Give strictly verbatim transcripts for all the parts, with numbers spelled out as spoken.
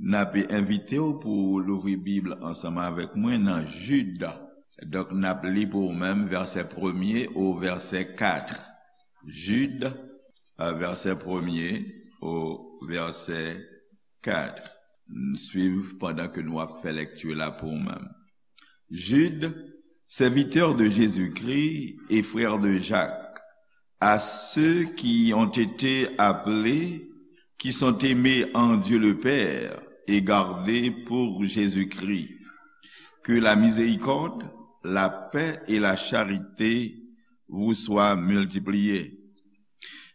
N ap envite w pou w louvri Bib ansanm avèk mwen nan Jid. Donk, n ap li pou ou menm vèsè premye o vèsè kat. Jid, euh, vèsè premye o vèsè kat. Swiv pandan ke nou ap fè lekti la pou ou menm. Jude, serviteur de Jésus-Christ et frère de Jacques, à ceux qui ont été appelés, qui sont aimés en Dieu le Père et gardés pour Jésus-Christ. Que la miséricorde, la paix et la charité vous soient multipliées.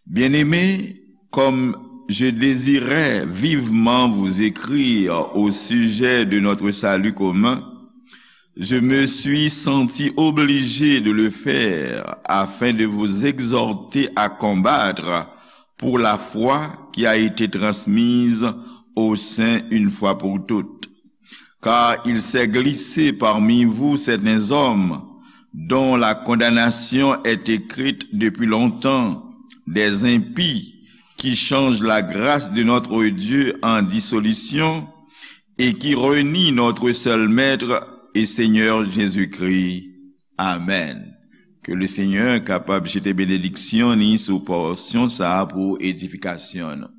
Bien-aimés, comme je désirais vivement vous écrire au sujet de notre salut commun, je me suis senti obligé de le faire afin de vous exhorter à combattre pour la foi qui a été transmise aux saints une fois pour toutes. Car il s'est glissé parmi vous certains hommes dont la condamnation est écrite depuis longtemps, des impies qui changent la grâce de notre Dieu en dissolution et qui renient notre seul Maître et Seigneur Jésus-Christ. Amen. Ke Lesenyè kapab jete benediksyon ni sou pòsyon sa a pou edifikasyon nou.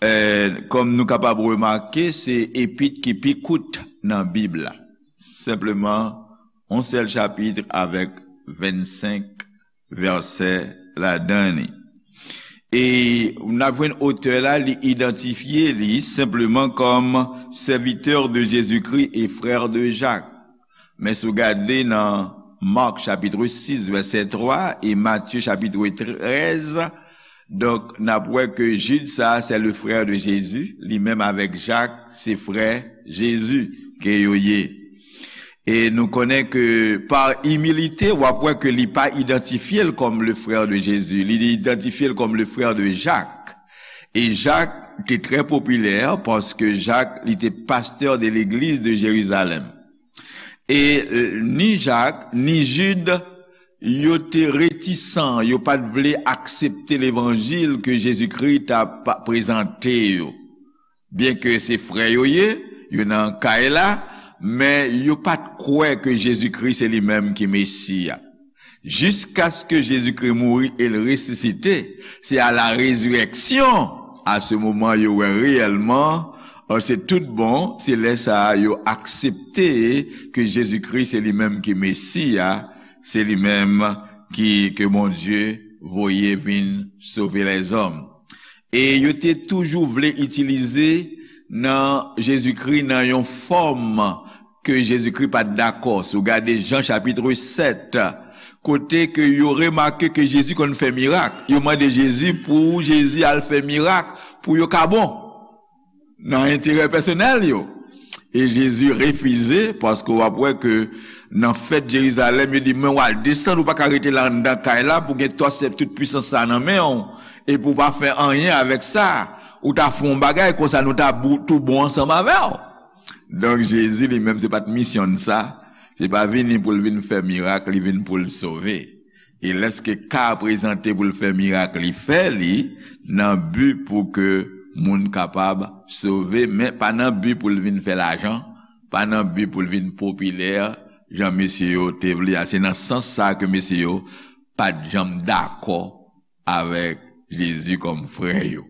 Eh, kòm nou kapab remake, se epit ki pi kout nan Bib la. Senpleman, yon sèl chapit avèk vennsenk vèsè ladan li. E n ap jwenn otè la, li idantifye li senpleman kòm serviteur de Jésus-Christ et frère de Jacques. Men si w gade nan Mark chapitre six, vèsè twa, e Matye chapitre treize, donk, n ap wè ke Jid sa, se le frère de Jésus, li menm avèk Jak, se frè Jezi ke yo ye. E nou konnen ke pa imilite, w ap wè ke li pa idantifye l kòm le frère de Jésus, li idantifye l kòm le frère de Jacques. E Jak te trè popilè paske Jak, li te pastè de legliz de Jerizalèm. E, euh, ni Jak, ni Jid, yo te retisan, yo pa t vle aksepte levanjil ke Jezikri t ap prezante yo. Byenke se frè yo ye, yo nan kay la, men yo pa t kwè ke Jezikri se li menm ki Mesi a. Jiskaske Jezikri mouri e l resisite, se à la résurrection, à ce moment, yo wè reyèlman, euh, se tout bon, se lè sa a yo aksepte ke Jezikri se li menm ki Mesi a, se li menm ki, ke Bondye voye vin sove lèzòm. E yo te toujou vle itilize nan Jezikri nan yon fòm ke Jezikri pa t dakò. Si w gade Jan chapitre sept, kote ke yo remake ke Jezi konn fè mirak, yo mande Jezi pou Jezi al fè mirak pou yo ka bon, nan enterè pèsonèl yo. E Jezi refize, paske w ap wè ke nan fèt Jerizalèm, yo di, men w al desann, ou pa ka rete la anndan kay la, pou gen twa sèp tout pwisans sa nan men w, epi w pa fè anyen avèk sa. Ou ta fè yon bagay, konsa nou ta bou-, tou bon ansanm avè w. Donk, Jezi li menm, se pa t misyon l sa. Se pa vini pou l vin fè mirak, li vin pou l sove. E lèske ka prezante pou l fè mirak, li fè li nan bi pou ke moun kapab sove, men pa nan bi pou l vin fè lajan, pa nan bi pou l vin popilè, jan mesye yo te vle a. Se nan sans sa ke mesye yo pa t janm dakò avèk Jezi kòm frè yo.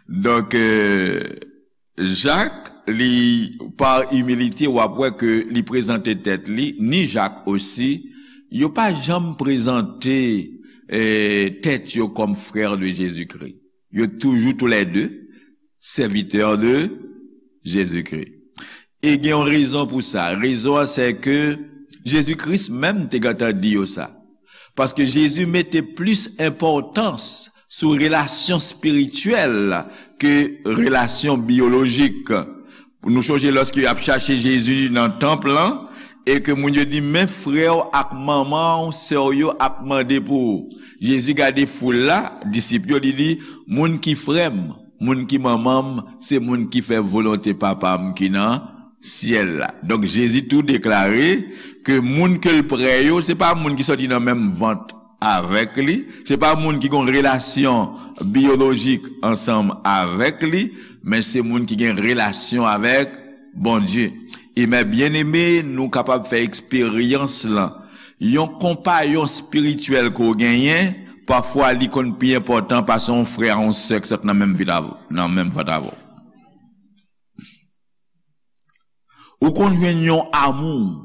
Donk, euh, Jak, li, pa imilite, w ap wè ke li prezante tèt li, ni Jak osi, yo pa janm prezante, eh, tèt yo kòm frè de Jezikri. Yo toujou toulède sèvitè de Jezikri. E gen yon rezon pou sa. Rezon an, se ke Jezi Kris menm te gentan di yo sa. Paske Jezi mete plis enpòtans sou relasyon espirityèl ke relasyon biyolojik. Nou chonje lòske y ap chache Jezi nan tanp lan, e ke moun yo di, men frè w ak manman w, sè w yo ap mande pou ou. Jezi gade foul la, disip yo, li di, moun ki frè m, moun ki manman m, se moun ki fè volonte Papa m ki nan syèl la. Donk, Jezi tou deklare ke moun ke l prè yo, se pa moun ki sòti nan menm vant avèk li. Se pa moun ki gen relasyon biyolojik ansanm avèk li, men se moun ki gen relasyon avèk Bondye. E men byeneme, nou kapab fè eksperyans lan. Yon konpayon espirityèl ke w genyen, pafwa li konn pi enpòtan pase yon frè a yon sè ki sot nan menm vit avè w, nan menm vant avè w. Ou konn jwenn yon amou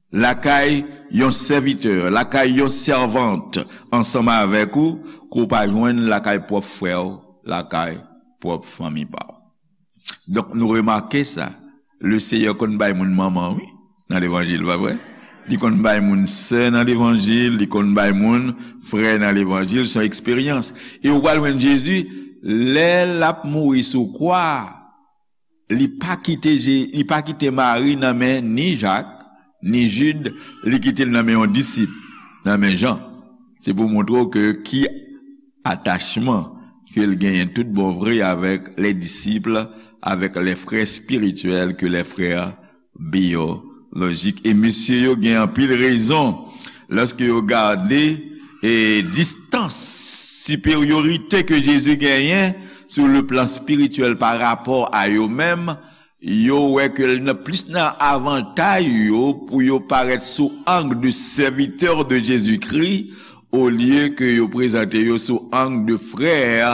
lakay yon sèvitè, lakay yon sèvant ansanm avèk ou, ke w pa jwenn lakay pwòp frè w, lakay pwòp fanmi pa w. Donk, nou remake sa. Leseyè konn bay moun manman, wi, nan levanjil, pa vre? Li konn bay moun sè nan levanjil, li konn bay moun frè nan levanjil, se yon eksperyans. E ou pral jwenn Jezi, lè l ap mouri sou kwa, li pa kite Je-, li pa kite Mari nan men ni Jak, ni Jid, li kite l nan men yon disip, nan men Jan. Se pou montre w ke ki atachman ke l genyen tout bon vre avèk les disciples, avèk les frères spirituels, ke les frères biyolojik. E mesye yo gen anpil rezon lòske yo gade e distans, siperyorite ke Jezi genyen sou le plan spirityèl pa rapò a yo menm, yo wè ke l nan plis nan avantaj yo pou yo parèt sou ang de serviteur de Jésus-Christ, olye ke yo prezante yo sou ang de frè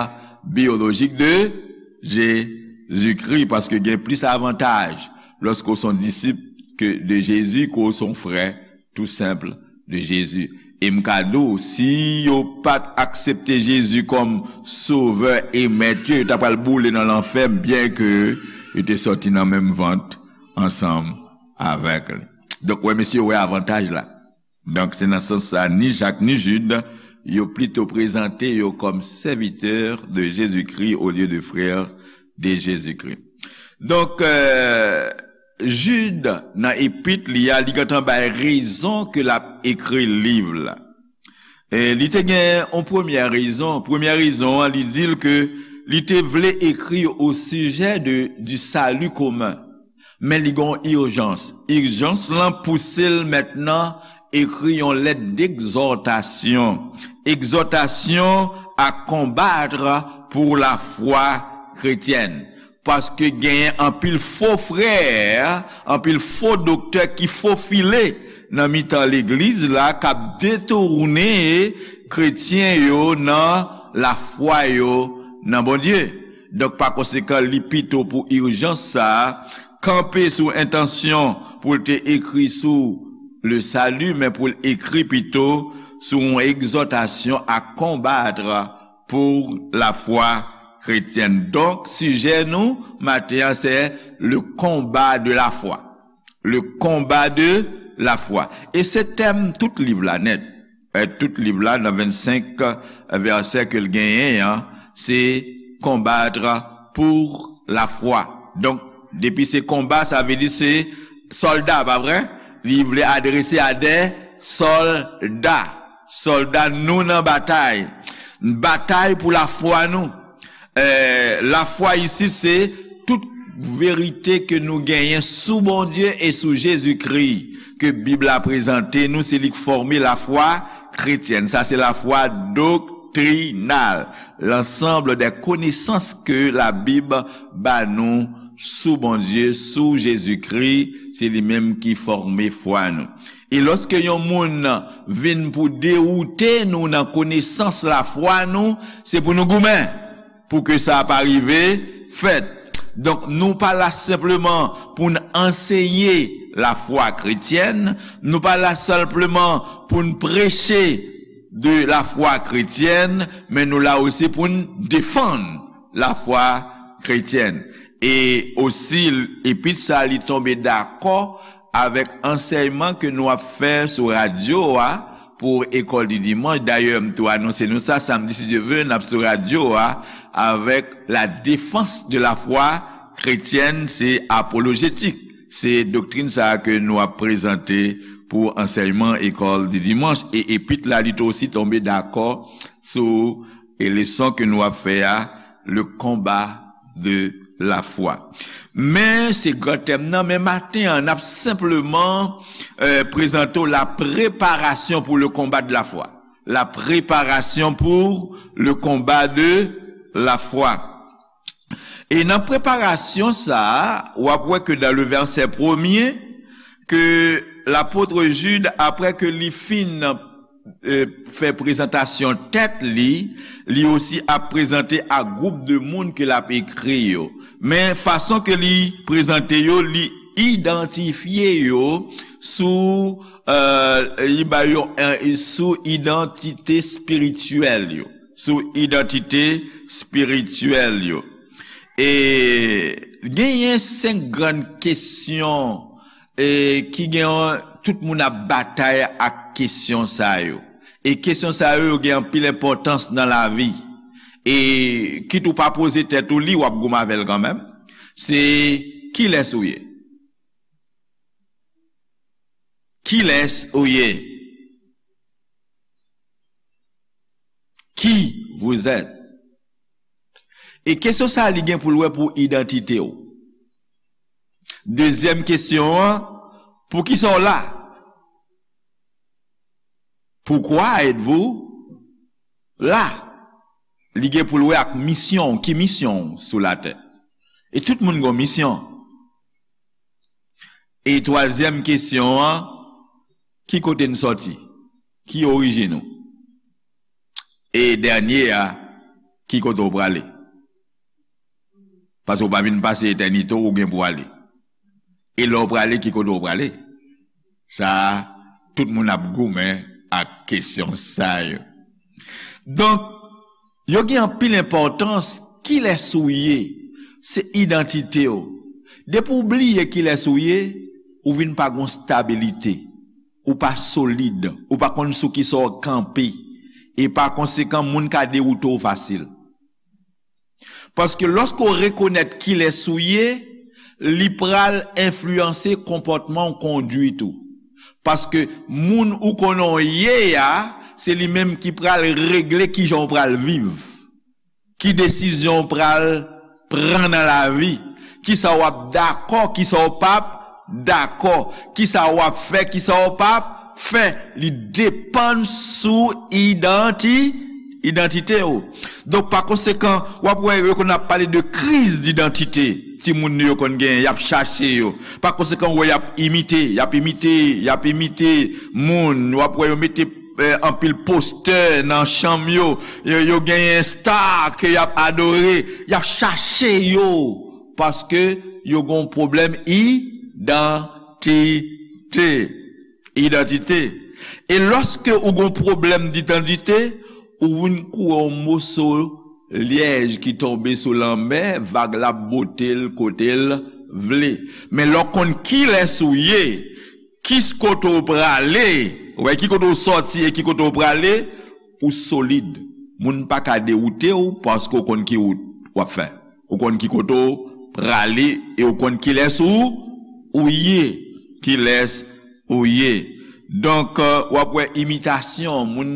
biyolojik de Jezikri, paske gen plis avantaj lòske w se yon disip ke de Jezi ke w se yon frè tou senp de Jezi. E m ka di w, si yo pa t aksepte Jezi kòm Sovè e Mèt yo, yo ta pral boule nan lanfè, byenke yo te sòti nan menm vant ansanm avèk li. Donk, wè, mesye, wè avantaj la. Donk, se nan sans sa, ni Jak, ni Jid, yo plito prezante yo kòm serviteur de Jésus-Christ au lieu de frère de Jésus-Christ. Donk, euh, Jid, nan epit li a, li gentan bay rezon ke l ap ekri liv la. E li te gen yon premyè rezon. Premyè rezon an, li di l ke li te vle ekri au sujet de, du salut commun. Men li gen yon ijans. Ijans lan pouse l mentnan ekri yon lèt d'egzòtasyon. Egzòtasyon à combattre pour la foi chrétienne. Paske genyen anpil fo frè, anpil fo doktè ki fofile nan mitan legliz la, k ap detounen kretyen yo nan lafwa yo nan Bondye. Donk, pa konsekan, li pito pou ijans sa a, kanpe sou entansyon pou l te ekri sou le salut, men pou l ekri pito sou yon egzòtasyon à combattre pour la foi chrétienne. Donk, sijè nou maten an, se le combat de la foi. Le combat de la foi. E se tèm tout liv la nèt. E tout liv la, nan vennsenk vèsè ke l genyen an, se combattre pour la foi. Donk, depi se konba, sa vle di se sòlda, pa vre? Li vle adrese a de sòlda. Sòlda nou nan batay. Batay pou lafwa nou. Eh, lafwa isit se tout verite ke nou genyen sou Bondye e sou Jezikri, ke Bib la prezante nou, se li k fòme lafwa kretyèn. Sa se lafwa doktrinal, l'ensemble des connaissances que la Bible ba nou sou Bondye, sou Jezikri, se li menm ki fòme fwa nou. E lòske yon moun vin pou dewoute nou nan konesans lafwa nou, se pou nou goumen pou ke sa pa rive fèt. Donk, nou pa la senpleman pou n anseye lafwa kretyèn, nou pa la senpleman pou n preche de lafwa kretyèn, men nou la osi pou n defann lafwa kretyèn. E osi, epit sa, li tonbe dakò avèk ansèyman ke nou ap fè sou radyo a pou École du Dimanche. Dayè, m tou anonse nou sa, samdi, si Dye vle, n ap sou radyo a avèk la défense de la foi chrétienne, se apolojetik. Se doktrin sa a ke nou ap prezante pou ansèyman École du Dimanche. E epit la, li tou osi tonbe dakò sou e leson ke nou ap fè a, le combat de la foi. Men se gran tèm nan, men maten an, n ap senpleman, eh, prezante w la préparation pour le combat de la foi. La préparation pour le combat de la foi. E nan preparasyon sa a, w ap wè ke dans le verset premier, ke lapot Jid, apre ke li fin, euh, fè prezantasyon tèt li, li osi ap prezante a gwoup de moun ke l ap ekri yo. Men fason ke li prezante yo, li idantifye yo sou, euh, li ba yo, euh, sou idantite espirityèl yo. Sou idantite espirityèl yo. E genyen senk grann kesyon, e ki gen, tout moun ap batay ak kesyon sa yo. E kesyon sa yo, yo gen anpil enpòtans nan lavi. E kit ou pa poze tèt ou li, w ap goumen avè l kanmenm. Se, kilès ou ye? Kilès ou ye? Qui vous êtes? E kesyon sa a, li gen pou l wè pou idantite w. Dezyèm kesyon an, poukisa w la? Pourquoi êtes-vous là? Li gen pou l wè ak misyon w, ki misyon w sou latè. E tout moun gen yon misyon. E twazyèm kesyon an, ki kote n sòti? Ki orijin ou? E dènye a, ki kote w prale? Paske w pa vin pase etènite w, ou gen pou ale. E lè w prale, ki kote w prale? Sa a, tout moun ap goumen ak kesyon sa yo. Donk, yo gen anpil enpòtans, kilès ou ye, se idantite w. Depi w bliye kilès ou ye, ou vin pa gon stabilite. Ou pa solid. Ou pa konn sou kisa w kanpe. E pa konsekan, moun ka dewoute w fasil. Paske lòske w rekonèt kilès ou ye, li pral enfliyanse konpòtman w, kondwit ou. Paske moun ou konnen w ye a, se li menm ki pral regle kijan w pral viv, ki desizyon w pral pran nan lavi, kisa w ap dakò, kisa w p ap dakò, kisa w ap fè, kisa w p ap fè, li depann sou idanti-, idantite w. Donk, pa konsekan, w ap wè yo konn ap pale de kriz didantite. Timoun nou yo konn genyen, y ap chache yo. Pa konsekan, w wè y ap imite, y ap imite, y ap imite moun. W ap wè yo mete, eh, anpil postè nan chanm yo. Yo, yo genyen sta ke y ap adore. Y ap chache yo. Paske yo gon pwoblèm idantite. Idantite. E lòske ou gon pwoblèm didantite, ou vin kou yon moso lyèj ki tonbe sou lanmè, vag la ap bote l kote l vle. Men lè w konn kilès ou ye, ki kote w prale, ou wè ki kote w sòti e ki kote w prale, ou solid. Moun pa ka dewoute w paske w konn ki wout w ap fè. Ou konn ki kote w prale e ou konn kilès ou, ou ye. Kilès ou ye. Donk, euh, w ap wè imitasyon, moun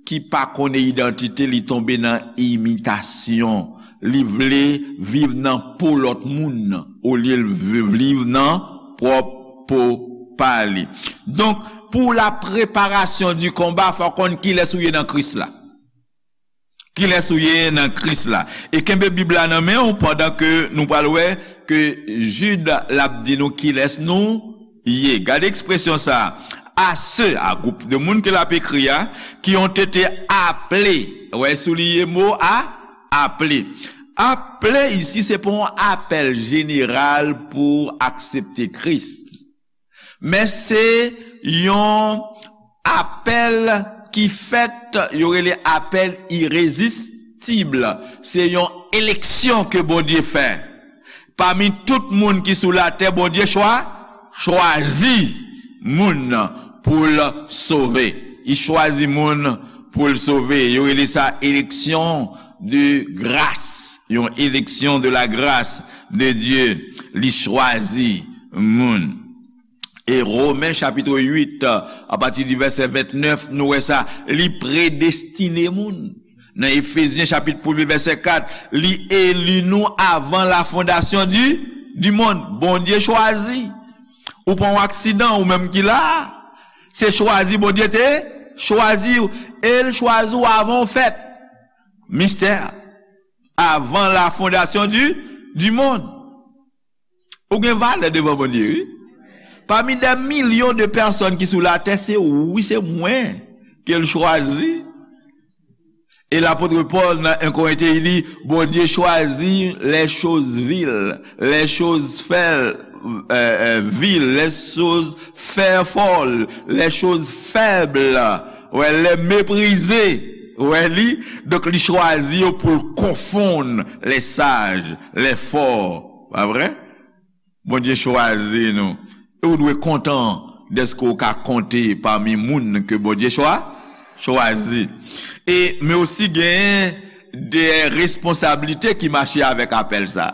ki pa konnen idantite, li tonbe nan imitasyon. Li vle viv nan po lòt moun, olye l vi-, viv nan pwòp po pa li. Donk, pou la préparation du combat, fò w konn kilès ou ye nan Kris la. Kilès ou ye nan Kris la. E kenbe Bib la nan men w pandan ke nou pral wè ke Jid l ap di nou kilès nou ye. Gade ekspresyon sa a. À ceux, a gwoup de moun ke l ap ekri a, qui ont été appelés. Wè, souliye mo a, appelés. Appelés isi, se pa yon apèl jeneral pou aksepte Kris. Men se yon apèl ki fèt, yo rele apèl irezistib. Se yon eleksyon ke Bondye fè. Pami tout moun ki sou latè, Bondye chwa-, chwazi moun pou l sove. Li chwazi moun pou l sove. Yo rele sa eleksyon de gras. Yon eleksyon de la grâce de Dieu. Li chwazi moun. E Women chapit uit, apati di vèsè vennèf, nou wè sa, li predestine moun. Nan Efezyen chapit premye vèsè kat, li eli nou avan la fondasyon di, di mond. Bondye chwazi. Ou pa yon aksidan, ou menm ki la a. Se chwazi, Bondye te chwazi w. E l chwazi w avan w fèt. Mistè. Avant la fondation du, du monde. Ou gen valè devan Bondye, wi. Pami dè milyon de pèsòn ki sou latè, se ou, se mwen ke l chwazi. E lapot Pòl nan en Korentyen, li di, Bondye chwazi les choses viles, les choses fè, euh, euh, viles, les choses fè fòl, les choses faibles, ouais, les méprisées, ouais, li, donk li chwazi yo pou l konfonn les sages, les forts, pa vre? Bondye chwazi nou. E ou dwe kontan dèske ou ka konte pami moun ke Bondye chwa, chwazi. E, men osi gen de responsablite ki mache avèk apèl sa.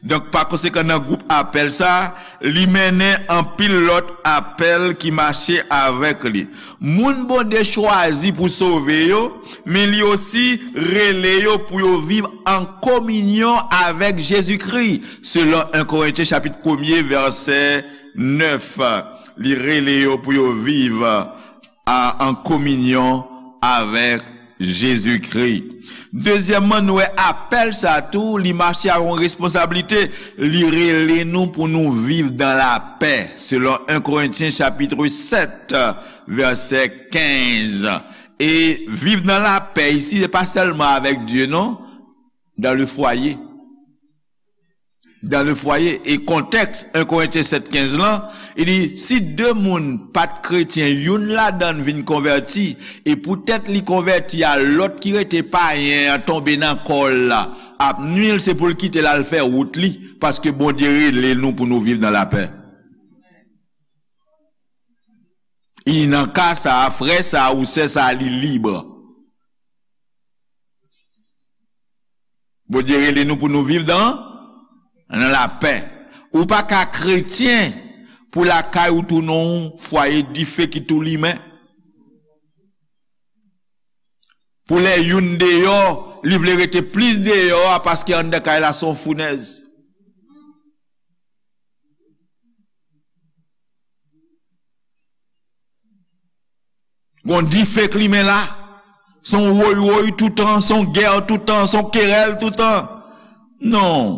Donk, pa konsekan, nan gwoup apèl sa, li mennen anpil lòt apèl ki mache avèk li. Moun Bondye chwazi pou sove yo, men li osi rele yo pou yo viv an kominyon avèk Jezikri, selon en Korentyen chapit premye, vèsè nèf. Li rele yo pou yo viv a, an kominyon avèk Jezikri. Dezyèmman, nou wè apèl sa tou, li mache ak yon responsablite. Li rele nou pou nou viv dan lapè, selon en Korentyen chapit sèt, vèsè kenz. E viv nan lapè isi, se pa sèlman avèk Dye, non, dans le foyer. Dans le foyer. E kontèks en Korentyen sèt kenz lan, li di, si de moun pa t kretyen, youn ladan l vin konvèti, e poutèt li konvèti a, lòt ki rete payen an tonbe nan kò l la, ap nwi l, se pou l kite l al fè wout li, paske Bondye rele nou pou nou viv nan lapè. E nan ka sa a, frè sa a ou sè sa a, li lib. Bondye rele nou pou nou viv dan, nan lapè. Ou pa ka kretyen pou lakay ou tounen yon fwaye dife ki tou limen. Pou lè youn deyò, li vle rete plis deyò a paske anndan kay la se yon founèz. Gon dife k limen la. Se yon woy woy toutan, se yon gè toutan, se yon kerèl toutan. Non,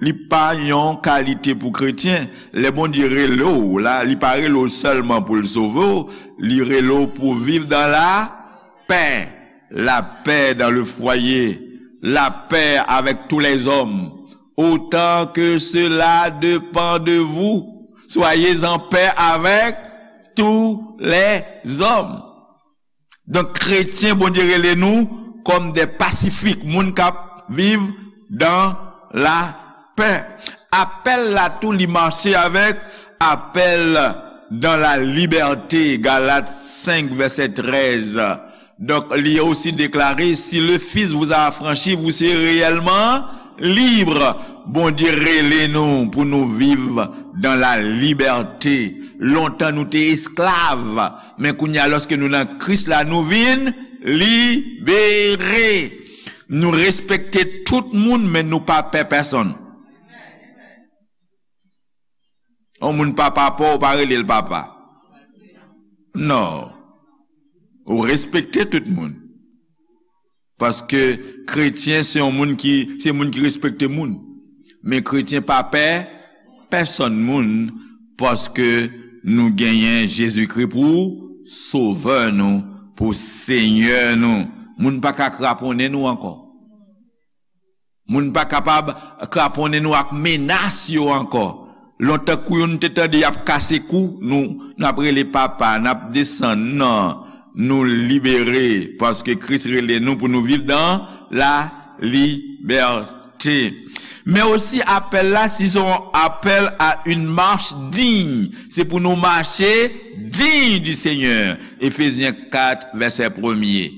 li pa yon kalite pou kretyen. Lè Bondye rele w la, li pa rele w sèlman pou l sove w, li rele w pou viv dan lapè. Lapè dan le fwaye, lapè avèk tou lèzòm. Autant que cela dépend de vous, soyez en paix avec tous les hommes. Donk, kretyen, Bondye rele nou kòm de pasifik, moun k ap viv dan lapè. Apèl la tou, li mache avèk apèl dans la liberté, Galat senk, vèsè trèz. Donk, li osi deklare, si le Fils vous a affranchi, vous serez réellement libre. Bondye rele nou pou nou viv dans la liberté. Lontan nou te esklav, men kounye a, lòske nou nan Kris la, nou vin libere. Nou respekte tout moun, men nou pa pè pèsonn. Yon moun pa papa w, ou pa rele l papa. Non. Ou respekte tout moun. Paske kretyen se yon moun ki, se moun ki respekte moun. Men kretyen pa pè pèsonn moun, paske nou genyen Jezikri pou sovè nou, pou Senyè nou. Moun pa ka kraponnen nou ankò. Moun pa kapab kraponnen nou ak menas yo ankò. Lontan kou yo nou te tande y ap kase kou, nou, n ap rele papa, n ap desann. Non, nou libere, paske Kris rele nou pou nou viv dans la liberté. Men osi apèl la, si se yon apèl à une marche digne, se pou nou mache digne du Seigneur. Efezyen kat, vèsè premye.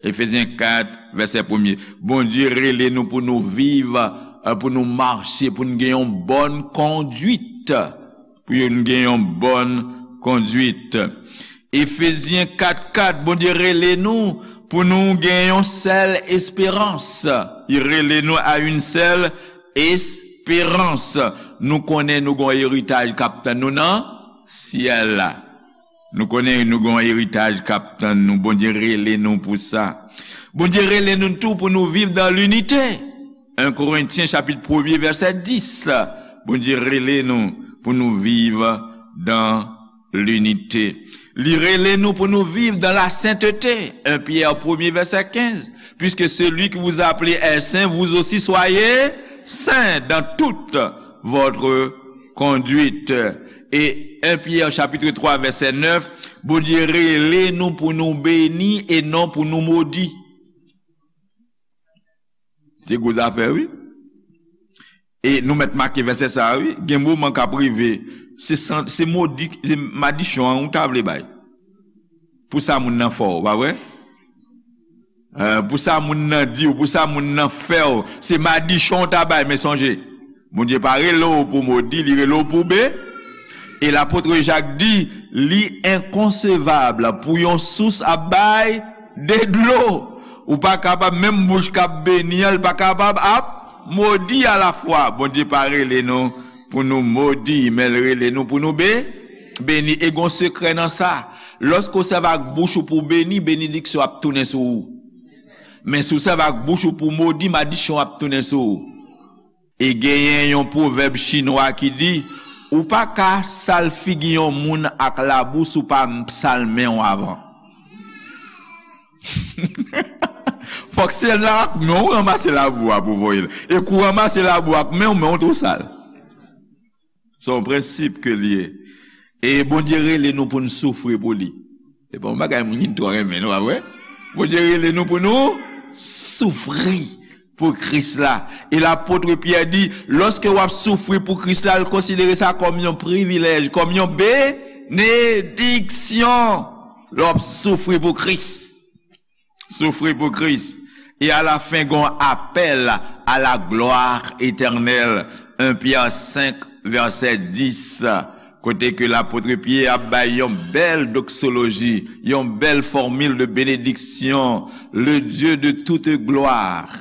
Efezyen kat, vèsè premye. Bondye rele nou pou nou viv, eh, pou nou mache, pou nou gen yon bòn kondwit. Pou nou gen yon bòn kondwit. Efezyen kat kat, Bondye rele nou pou nou gen yon sèl esperans. Li rele nou à une seule espérance. Nou konnen nou gon eritaj k ap tann nou nan syèl la. Nou konnen nou gen yon eritaj k ap tann nou. Bondye rele nou pou sa. Bondye rele nou tou pou nou viv dans l'unité. En Korentyen chapit premye vèsè dis. Bondye rele nou pou nou viv dans l'unité. Li rele nou pou nou viv dans la sainteté. En Pyè premye vèsè kenz. Puisque celui qui vous a appelé est saint, vous aussi soyez saints dans toute votre conduite. Et en Pyè chapit twa vèsè nèf, Bondye rele nou pou nou beni e non pou nou modi. Se gwo zafè, wi. E nou mèt make vèsè sa a, wi. Gen moman k ap rive, se san, se modi, se madichon an ou ta vle bay. Pou sa moun nan fè w, pa vre? Eh, pou sa moun nan di w, pou sa moun nan fè w, se madichon w ta bay, men sonje, Bondye pa rele w pou modi, li rele w pou be. E lapot Jak di, li enkonsevab pou yon sous ap bay de dlo. Ou pa kapab, menm bouch k ap beni an, li pa kapab ap modi alafwa. Bondye pa rele nou pou nou modi, men l rele nou pou nou be, beni. E gon sekrè nan sa. Lòske w sèvi ak bouch ou pou w beni, benediksyon ap tounen sou ou. Men si w sèvi ak bouch ou pou w modi, madichon ap tounen sou ou. E genyen yon pwovèb chinwa ki di, ou pa ka sal figi yon moun ak labou si w pa sal men w avan. Fòk se la ak men w ranmase labou a pou voye l. E kou w ranmase labou ak men w, men w tou sal. Se yon prensip ke l ye. E Bondye rele nou pou n soufri pou li. Se pa yon bagay moun ki twò renmen, non, pa vre? Bondye rele nou pou nou soufri pou Kris la. E lapot Pyè di, lòske w ap soufri pou Kris la, l konsidere sa kòm yon privilèj, kòm yon benediksyon. Lè w ap soufri pou Kris. Soufri pou Kris. E alafen, gon apèl à la gloire éternelle. En Pyè senk, vèsè dis, kote ke lapot Pyè ap bay yon bèl doksoloji, yon bèl fòmil de benediksyon. Le Dieu de toute gloire,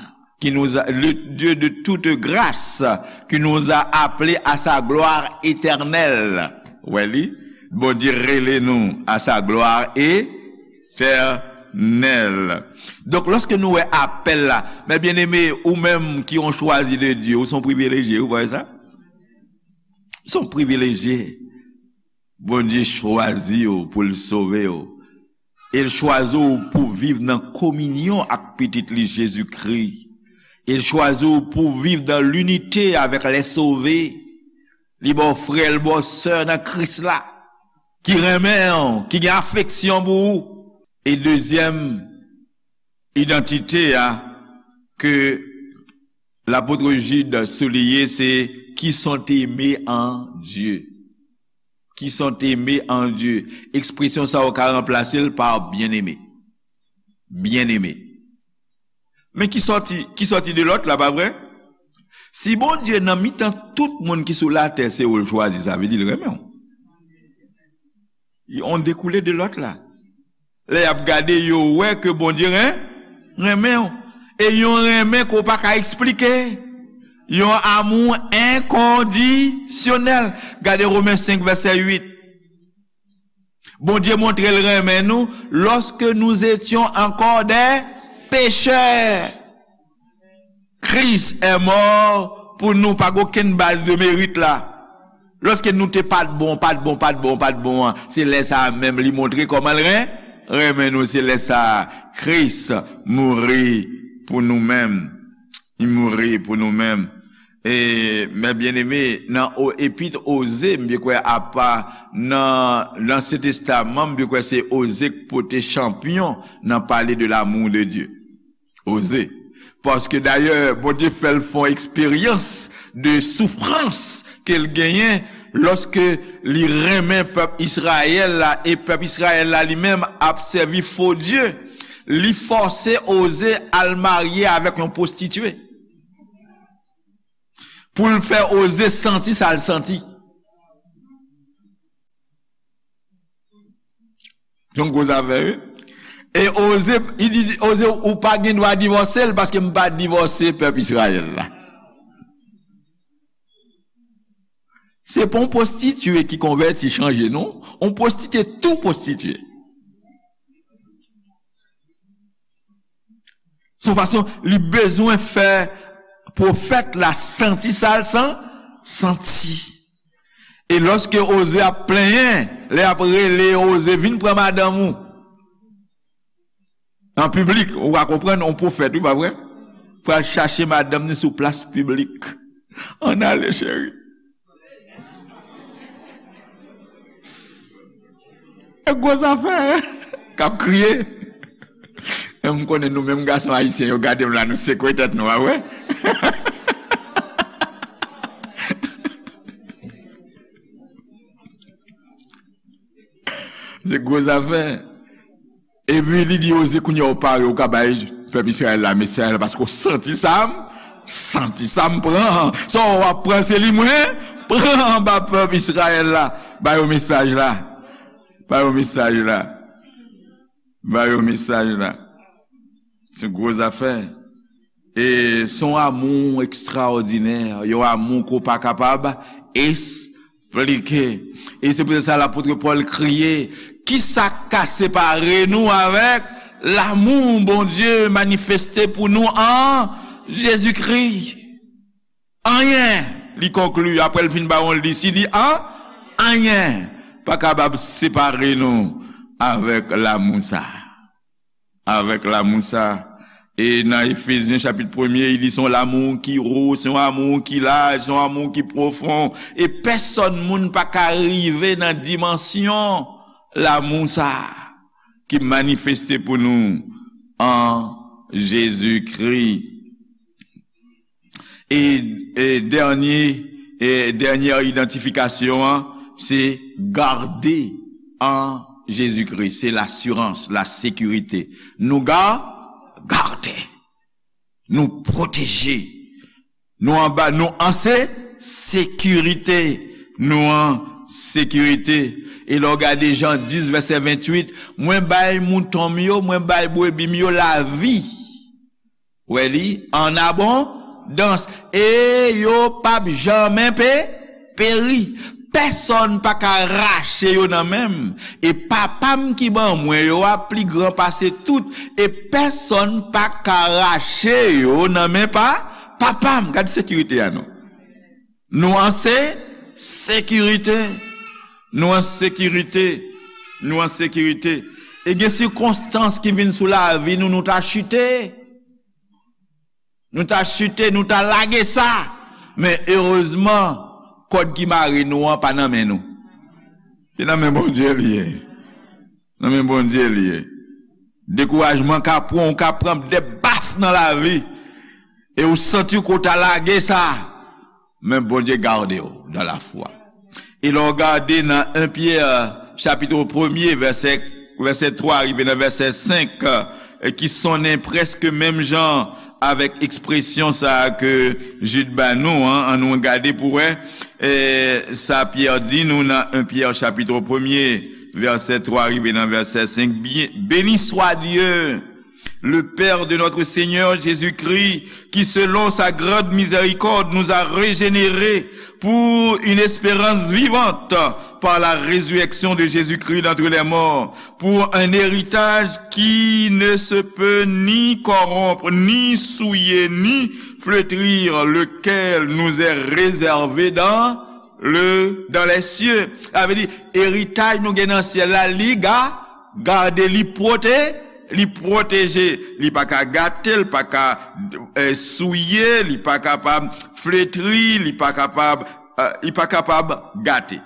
qui nous a, le Dieu de toute grâce, qui nous a appelés à sa gloire éternelle. Ou wè li? Bondye rele nou à sa gloire éternelle. Donk, lòske nou wè apèl la, men byeneme, ou menm ki yon chwazi de Dye, ou se yon privilejye, ou wè sa? Ou se yon privilejye. Bondye chwazi w pou l sove w. E l chwazi w pou viv nan kominyon ak Pitit li Jezikri. E l chwazi w pou viv dans l'unité avec les sauvés. Li ba w frè, l ba w sè nan Kris la, ki renmen w, ki gen afeksyon pou ou. E dezyèm idantite a ke lapot Jid souliye, se qui sont aimés en Dieu. Qui sont aimés en Dieu. Ekspresyon sa a ou ka ranplase l pa byeneme. Byeneme. Men ki sòti, ki sòti de lòt la, pa vre? Si Bondye nan mitan tout moun ki sou latè, se ou l chwazi, sa vle di l renmen w. Yon dekoule de lòt la. Lè y ap gade, yo wè ke Bondye ren-, renmen w. E yon renmen ke w pa ka eksplike. Yon amour inconditionnel. Gade Women senk, vèsè uit. Bondye montre l renmen nou, lorsque nous étions encore des pécheurs, Christ est mort pour nous. Pa gen okenn baz de merit la. Lòske nou te pa t bon, pa t bon, pa t bon, pa t bon an, se lè sa a menm li montre kòman l ren-, renmen nou. Se lè sa a Kris mouri pou nou menm. Li mouri pou nou menm. E, men byeneme, nan o-, epit Oze, m byen kwè, apa nan Ansyen Testaman, m byen kwè se Oze k pote chanpyon nan pale de l'amour de Dieu. Oze. Paske dayè, Bondye fè l fè yon eksperyans de soufrans ke l genyen lòske li renmen pèp Izrayèl la, e pèp Izrayèl la li menm ap sèvi fo dye. Li fòse Oze al marye avèk yon pwostitye. Pou l fè Oze santi sa l santi. Se yon gwo zafè, wi. E Oze, li di, Oze, ou pa gen dwa divòse l, paske m pa divòse pèp Izrayèl la. Se pa yon pwostitye ki konvèti, chanje non. Yon pwostitye tou pwostitye. Se yon fason li bezwen fè pwofèt la santi sa l san-, santi. E lòske Oze ap plenyen, lè y ap rele Oze, "Vin pran madanm ou." An piblik, ou ka konprann, yon pwofèt, wi, pa vre? Pral chache madanm ni sou plas piblik. Ann ale, cheri. E gwo zafè, k ap kriye. E m konnen nou menm gason ayisyen, yo gade m la, nou sekwe tèt nou, a wè? Se gwo zafè. Epi li di Oze, "Kounye a w pare, ou ka bay pèp Izrayèl la mesaj la, paske w santi sa m, santi sa m pran. Sa w ap pran, se li mwen pran anba pèp Izrayèl la. Ba yo mesaj la. Ba yo mesaj la. Ba yo mesaj la." Se gwo zafè. E se yon amou ekstraòdinè, yon amou ke w pa kapab esplike. E se poutèt sa lapot Pòl kriye, "Kisa k ka separe nou avèk lanmou Bondye manifeste pou nou an Jezikri?" Anyen, li konkli, apre l fin ba yon lis, li di, an, anyen pa kapab separe nou avèk lanmou sa a. Avèk lanmou sa. E nan Efezyen chapit premye, li di se yon lanmou ki wo, se yon amou ki laj, se yon amou ki pwofon. E pèsòn moun pa ka rive nan dimansyon lanmou sa ki manifeste pou nou an Jezikri. E, e dènye, e dènyè idantifikasyon an, se gade an Jezikri. Se lasirans, la sekirite. Nou ga-, gade. Nou pwoteje. Nou anba, nou an se-, sekirite. Nou an sekirite. E lè w gade Jan dis, vèsè venntuit, "Mwen bay mouton m yo, mwen bay brebi m yo lavi." Wè li, an abondans. E yo p ap janmen pe-, peri. Pèsòn pa ka rache yo nan men m. E Papa m ki ban mwen yo a pli gran pase tout. E pèsòn pa ka rache yo nan men pa, Papa m. Gad sekirite a non. Nou an se-, sekirite. Nou an sekirite. Nou an sekirite. E gen sikonstans ki vin sou lavi nou, nou ta chite. Nou ta chite, nou ta lage sa. Men erezman, kòd ki mare nou an pa nan men nou. Se nan men Bondye li ye. Nan men Bondye li ye. Dekourajman ka pran, ou ka pran de baf nan lavi. E ou santi ke w ta lage sa. Men Bondye gade w dans la foi. E lè w gade nan en Pyè, chapit premye, vèsè, vèsè twa rive nan vèsè senk, e ki sonnen prèske menm jan avèk ekspresyon sa a ke Jid ba nou an, ann nou gade pou wè, e, sa Pyè di nou nan en Pyè chapit premye, vèsè twa rive nan vèsè senk, "Bien, béni soit Dieu, le Père de notre Seigneur Jésus-Christ, qui selon sa grande miséricorde nous a régénérés pour une espérance vivante par la résurrection de Jésus-Christ d'entre les morts, pour un héritage qui ne se peut ni corrompre, ni souiller, ni flétrir, lequel nous est réservé dans le, dans les cieux." Sa vle di, eritaj nou gen nan syèl la, li ga-, gade, li pwote-, li pwoteje. Li pa ka gate, li pa ka, eh, souye, li pa kapab fletri, li pa kapab, eh, li pa kapab gate.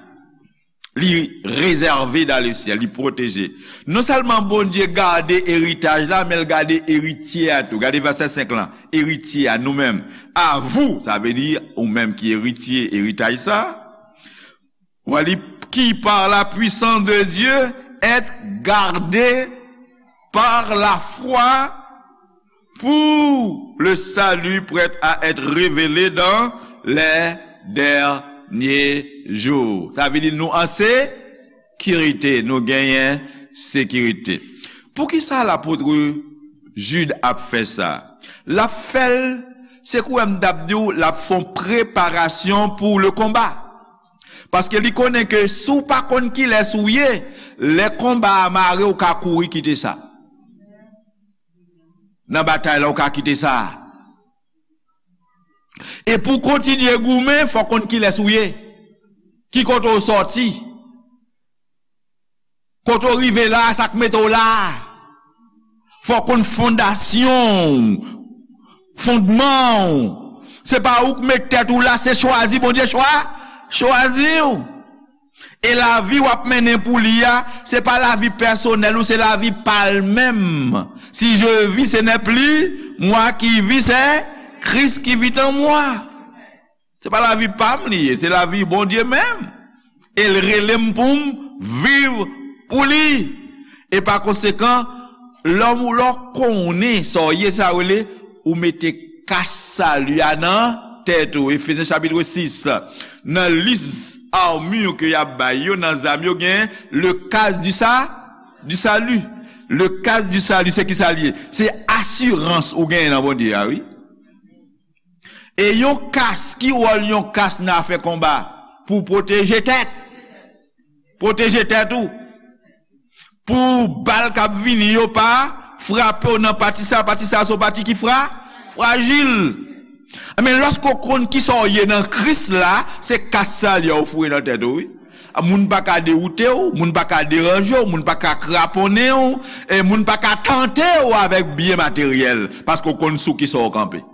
Li réservé dans le ciel, li pwoteje. Non sèlman Bondye gade eritaj la, men l gade eritye a tou. Gade vèsè senk lan. Eritye a, nou menm. À vous, sa vle di ou menm ki eritye eritaj sa. Wè li, qui par la puissance de Dieu êtes gardés par la foi pour le salut prêt à être révélé dans les derniers jours. Sa vle di nou an sekirite, nou genyen sekirite. Poukisa lapot Jid ap fè sa? L ap fè l, se kouwè m t ap di w, l ap fè yon preparasyon pour le combat. Paske li konnen ke si w pa konn kilès ou ye, lè konba a mare, w ka kouri kite sa. Nan batay la, w ka kite sa. E pou w kontinye goumen, fò w konn kilès ou ye. Ki kote w sòti. Kote w rive la, sa k mete w la. Fò w konn fondasyon w, fondman w. Se pa ou k met tèt ou la, se chwazi Bondye chwa, chwazi w. E lavi w ap mennen pou li a, se pa lavi pèsonèl ou, se lavi pa l menm. Si je vis, ce n'est plus moi qui vis, c'est Christ qui vit en moi. Se pa lavi pa m li ye, se lavi Bondye menm. E l rele m pou m viv pou li. E pa konsekan, lè w, lè w konnen sa w ye, sa w rele, ou mete kas sali a nan tèt ou. Efezyen chapit sis. Nan lis armure ke y ap bay yo, nan zam yo, gen le casque du sa-, du salut. Le casque du salut, se ki sa l ye? Se asirans ou genyen nan Bondye a, wi. E yon kas, ki wòl yon kas nan afè konba? Pou pwoteje tèt. Pwoteje tèt ou. Pou bal k ap vini yo pa frape w nan pati sa, pati sa se yon pati ki fra, frajil. Men lòske w konn kisa w ye nan Kris la, se kas sali a w foure nan tèt ou, wi. Moun pa ka dewoute w, moun pa ka deranje w, moun pa ka kraponnen w, e moun pa ka tante w avèk byen materyèl, paske w konn sou kisa w kanpe.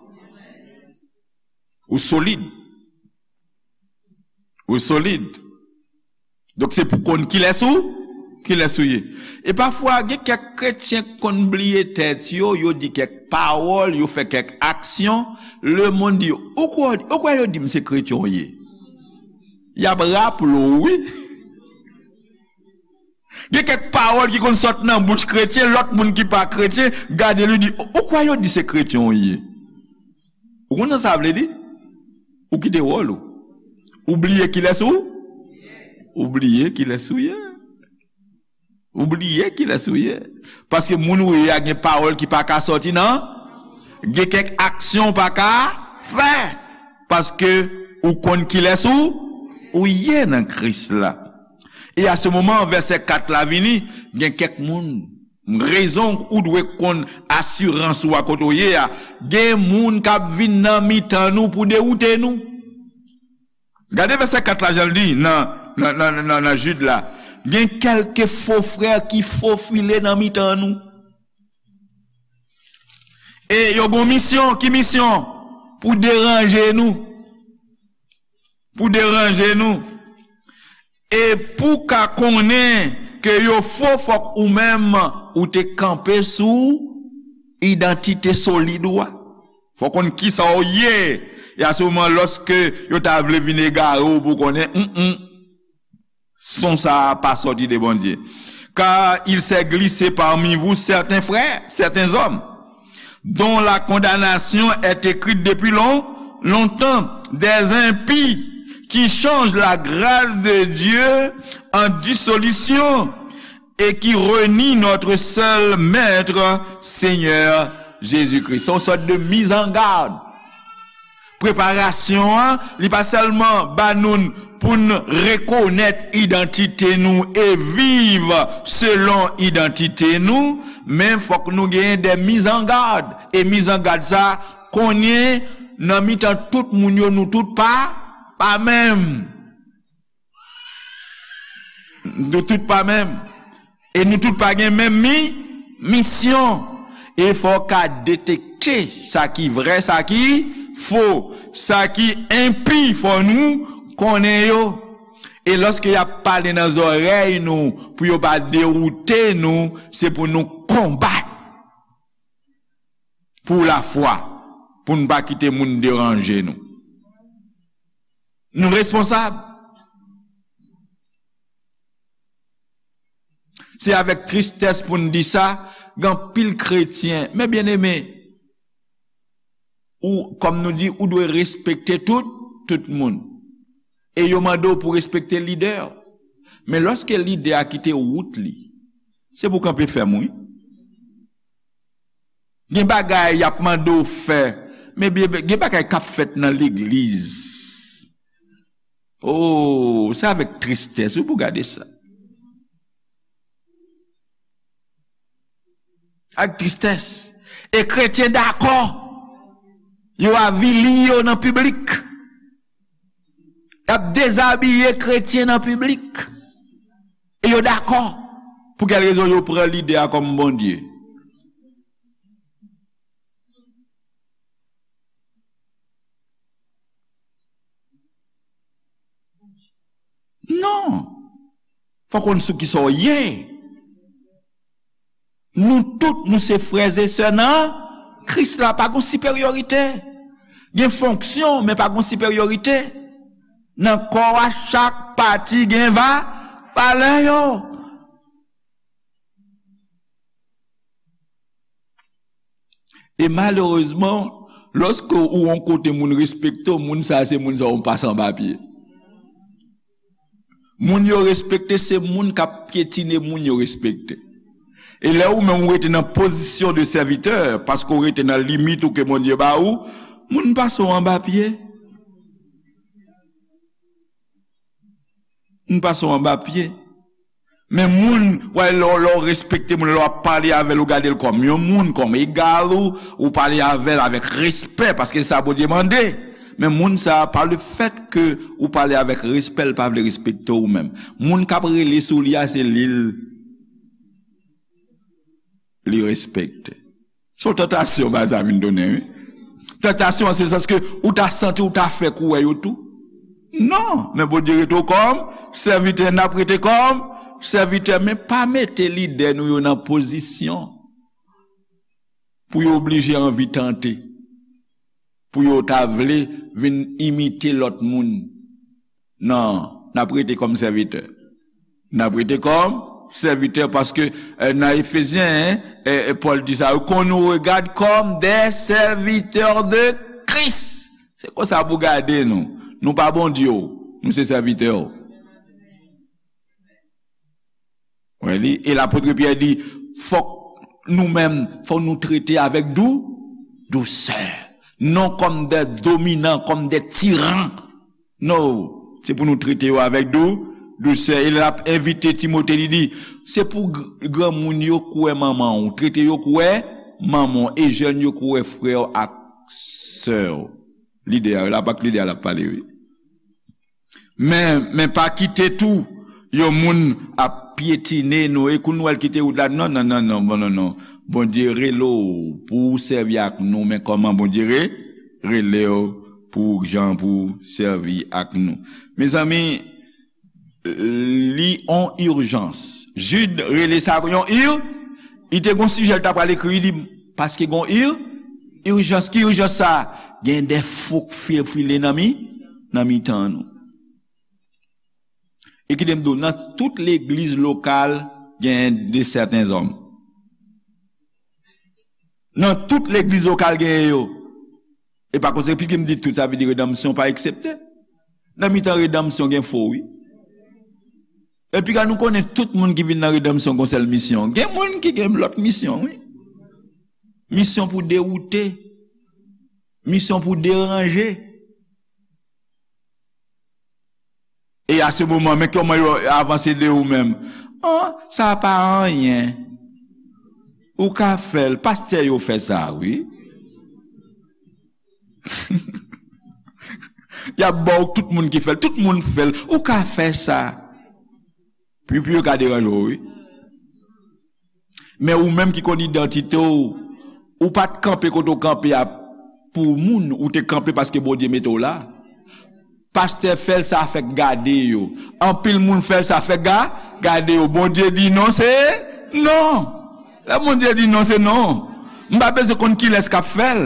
Ou solid. Ou solid. Donk, se pou konn kilès ou, kilès ou ye. E pafwa, gen kèk kretyen k konn bliye tèt yo, yo di kèk pawòl, yo fè kèk aksyon, lemonn di, ou kwè, ou kwè yo di m se kretyen w ye? Y ap raple w, wi. Gen kèk pawòl ki konn sot nan bouch kretyen, lòt moun ki pa kretyen, gade li di, ou kwè yo di se kretyen w ye? Ou konn sa sa vle di? Ou kite wòl ou. Ou bliye kilès ou? Ou bliye kilès ou ye. Ou bliye kilès ou ye. Paske moun ou ye a gen pawòl ki pa ka sòti nan, gen kèk aksyon ou pa ka fè. Paske ou konn kilès ou, ou ye nan Kris la. E a se moman, vèsè kat la vini, gen kèk moun, rezon ou dwe konn asirans ou a kote w ye a, gen moun k ap vin nan mitan nou pou dewoute nou. Gade vèsè kat la, jan l di nan, nan, nan, nan, nan Jid la. Gen kèlke fo frè ki fofile nan mitan nou. E yo gon misyon, ki misyon? Pou deranje nou. Pou deranje nou. E pou ka konnen ke yo fo, fòk ou menm ou te kanpe sou idantite solid ou a. Fò konn kisa w ye. E a se moman, lòske yo ta vle vin egare w pou konnen, mm, mm, son sa a pa sòti de Bondye. Car il s'est glissé parmi vous certains frères, certains hommes, dont la condamnation est écrite depuis long, longtemps, des impies qui changent la grâce de Dieu en dissolution et qui renient notre seul Maître, Seigneur Jésus-Christ. Se yon sòt de mise en garde. Preparasyon an, li pa sèlman ba nou pou n rekonèt idantite nou e viv selon idantite nou, men fòk nou genyen de mise en garde. E mise en garde sa, konnen nan mitan tout moun yo, nou tout pa, pa menm. Nou tout pa menm. E nou tout pa gen menm mi, misyon. E fò w ka detekte sa ki vrè, sa ki fo, sa ki enpi, fò nou konnen yo. E lòske y ap pale nan zòrèy nou, pou yo pa dewoute nou, se pou nou konbat pou lafwa, pou n pa kite moun deranje nou. Nou responsab. Se avèk tristès pou n di sa, gen anpil kretyen, men byeneme, ou, kòm nou di, ou dwe respekte tout, tout moun. E yo mande w pou respekte lidè. Men lòske lidè a kite wout li, se pou kanpe fèm, wi. Gen bagay y ap mande w fè, men byen, gen bagay k ap fèt nan legliz. Oh, se avèk tristès wi pou gade sa. Ak tristès. E kretyen dakò. Yo avili yo nan piblik. Y ap dezabiye kretyen nan piblik. E yo dakò. Pou kèl rezon yo pran lide a kòm Bondye? Non. Fò w konn sou kisa w ye. Nou tout, nou se frè e sè nan Kris la. Pa gon siperyorite. Gen fonksyon, men pa gon siperyorite. Nan kò a, chak pati gen va, valè yo. E malerezman, lòske ou yon kote moun respekte w, moun sa a se moun sa a ou pase anba pye. Moun yo respekte se moun k ap pyetine moun yo respekte. E lè ou menm ou rete nan pozisyon de sèvitè, paske ou rete nan limit ou ke Bondye ba ou, moun pase w anba pye. Moun pase w anba pye. Men moun, wè, lè, w- lè w respekte moun, lè w ap pale avè l, ou gade l kòm yon moun, kòm egal ou, ou pale avè l avèk respè, paske se sa Bondye mande. Men moun sa a, pa le fèt ke ou pale avèk respè, l pa vle respekte w menm. Moun k ap rele sou li a, se li l, li respekte. Se yon tantasyon bagay sa vin tounen, wi. Tantasyon an se sans ke ou ta santi ou ta fè kou wè yo tou. Non, men Bondye rete w kòm sèvitè, n ap rete kòm sèvitè, men pa mete lidè nou yo nan pozisyon pou yo oblije anvi tante, pou yo ta vle vin imite lòt moun. Non, n ap rete kòm sèvitè. N ap rete kòm sèvitè paske, eh, nan Efezyen, eh, eh, Pòl di sa, qu'on nous regarde comme des serviteurs de Christ. Se konsa pou gade nou. Nou pa Bondye w, nou se sèvitè w. Wè li, e lapot Pyè di, fòk nou menm, fòk nou trete avèk dou, dousè. Non kòm de dominan, kòm de tiran. Non, se pou nou trete yo avèk dou, dousè. E l ap envite Timote, li di, se pou gr- granmoun yo kwè manman w, trete yo kwè manman w, e jèn yo kwè frè w ak sè w. Lide a, la pa k lide a l ap pale, wi. Men, men pa kite tou yon moun ap pyetine nou. E kou nou al kite wout la, non, non, non, non, bon, non, non. Bondye rele w pou w sèvi ak nou, men kòman Bondye re, rele w pou jan pou w sèvi ak nou. Mezanmi, li on ijans. Jid rele sa yon ir, li te gon sijè l ta pral ekri, li paske gon ir, ijans. Ki ijans sa? Gen de fo k fil- file nan mi, nan mitan nou. E kite m di w, nan tout legliz lokal, gen de sèten zòm. Nan tout legliz lokal, gen yo. E pa konsekans, piske m di tout, sa vle di redanmsyon pa eksepte. Nan mitan redanmsyon, gen fo, wi. Epi, kan nou konnen tout moun ki vin nan redanmsyon gon sèl misyon. Gen moun ki gen lòt misyon, wi. Misyon pou dewoute. Misyon pou deranje. E a se moman, men kòman yo avanse de ou menm. An, sa pa anyen. Ou ka fè l. Pastè yo fè sa, wi. Y ap ba w tout moun ki fè l. Tout moun fè l. Ou ka fè sa. Pi, pi yo ka deranje w, wi. Men ou menm ki konn idantite w, ou pa t kanpe kote w kanpe a pou moun, ou te kanpe paske Bondye mete w la. Pastè fè l, sa fèk gade yo. Anpil moun fè l, sa fèk ga, gade yo. Bondye di non, se non. Lè Bondye di non, se non. M pa bezwen konn kilès k ap fè l.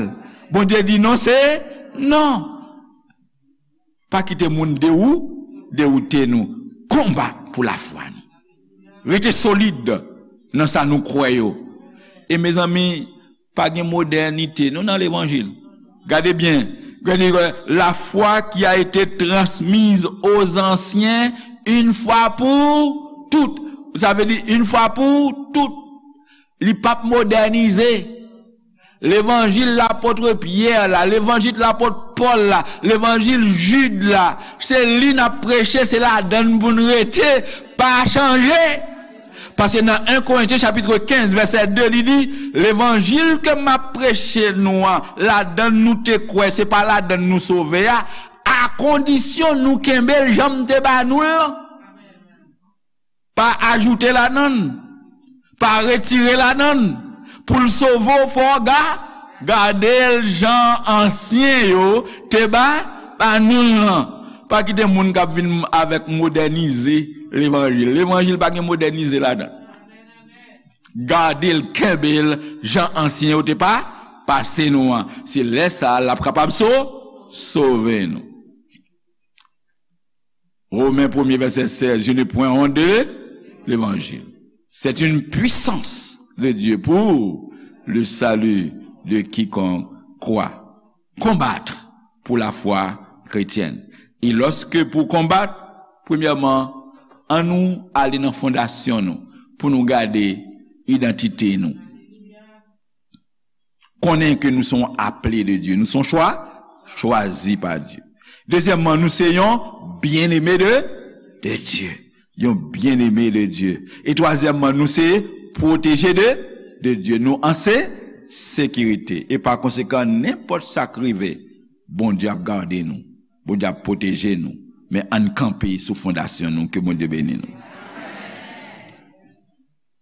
Bondye di non, se non. Pa kite moun dewou-, dewoute nou. Konbat pou lafwa nou. Rete solid nan sa nou kwè yo. E mezanmi, pa gen modènite non nan levanjil. Gade byen. Gade, la foi qui a été transmise aux anciens une fois pour toutes. Sa vle di une fois pour toutes. Li p ap modènize. Levanjil lapòt Pyè la, levanjil lapòt Pòl la, levanjil Jid la, se li n ap preche, se ladan n pou n rete, pa chanje. Paske nan en Korentyen chapit kenz vèsè de, li di, levanjil ke m ap preche nou an, ladan n nou te kwè, se pa ladan n nou sove a, a kondisyon nou kenbe l jan m te ba nou l lan. Pa ajoute ladan l, pa retire ladan l. Pou l sove w, fò w ga, gade l jan ansyen yo te ba, ba nou l lan. Pa kite moun k ap vin avèk modènize levanjil. Levanjil pa gen modènize ladan l. Gade l, kenbe l jan ansyen yo te pa, pase nou an. Se lè sa a l ap kapab so, sove nou. Romains premier verset seize, je n'ai point honte de l'évangile. C'est une puissance de Dieu pour le salut de quiconque croit. Combattre pour la foi chrétienne. Et lorsque pour combattre, premièrement, an nou ale nan fondasyon nou pou nou gade idantite nou. Konnen ke nou se yon aple de Dye. Nou se yon chwa, chwazi pa Dye. Dezyèmman, nou se yon byeneme de, de Dye. Yon byeneme de Dye. E twazyèmman, nou se pwoteje de, de Dye. Nou an se, sekirite. E pa konsekan, nenpòt sa k rive, Bondye ap gade nou. Bondye ap pwoteje nou. Men ann kanpe sou fondasyon nou. Ke Bondye beni nou.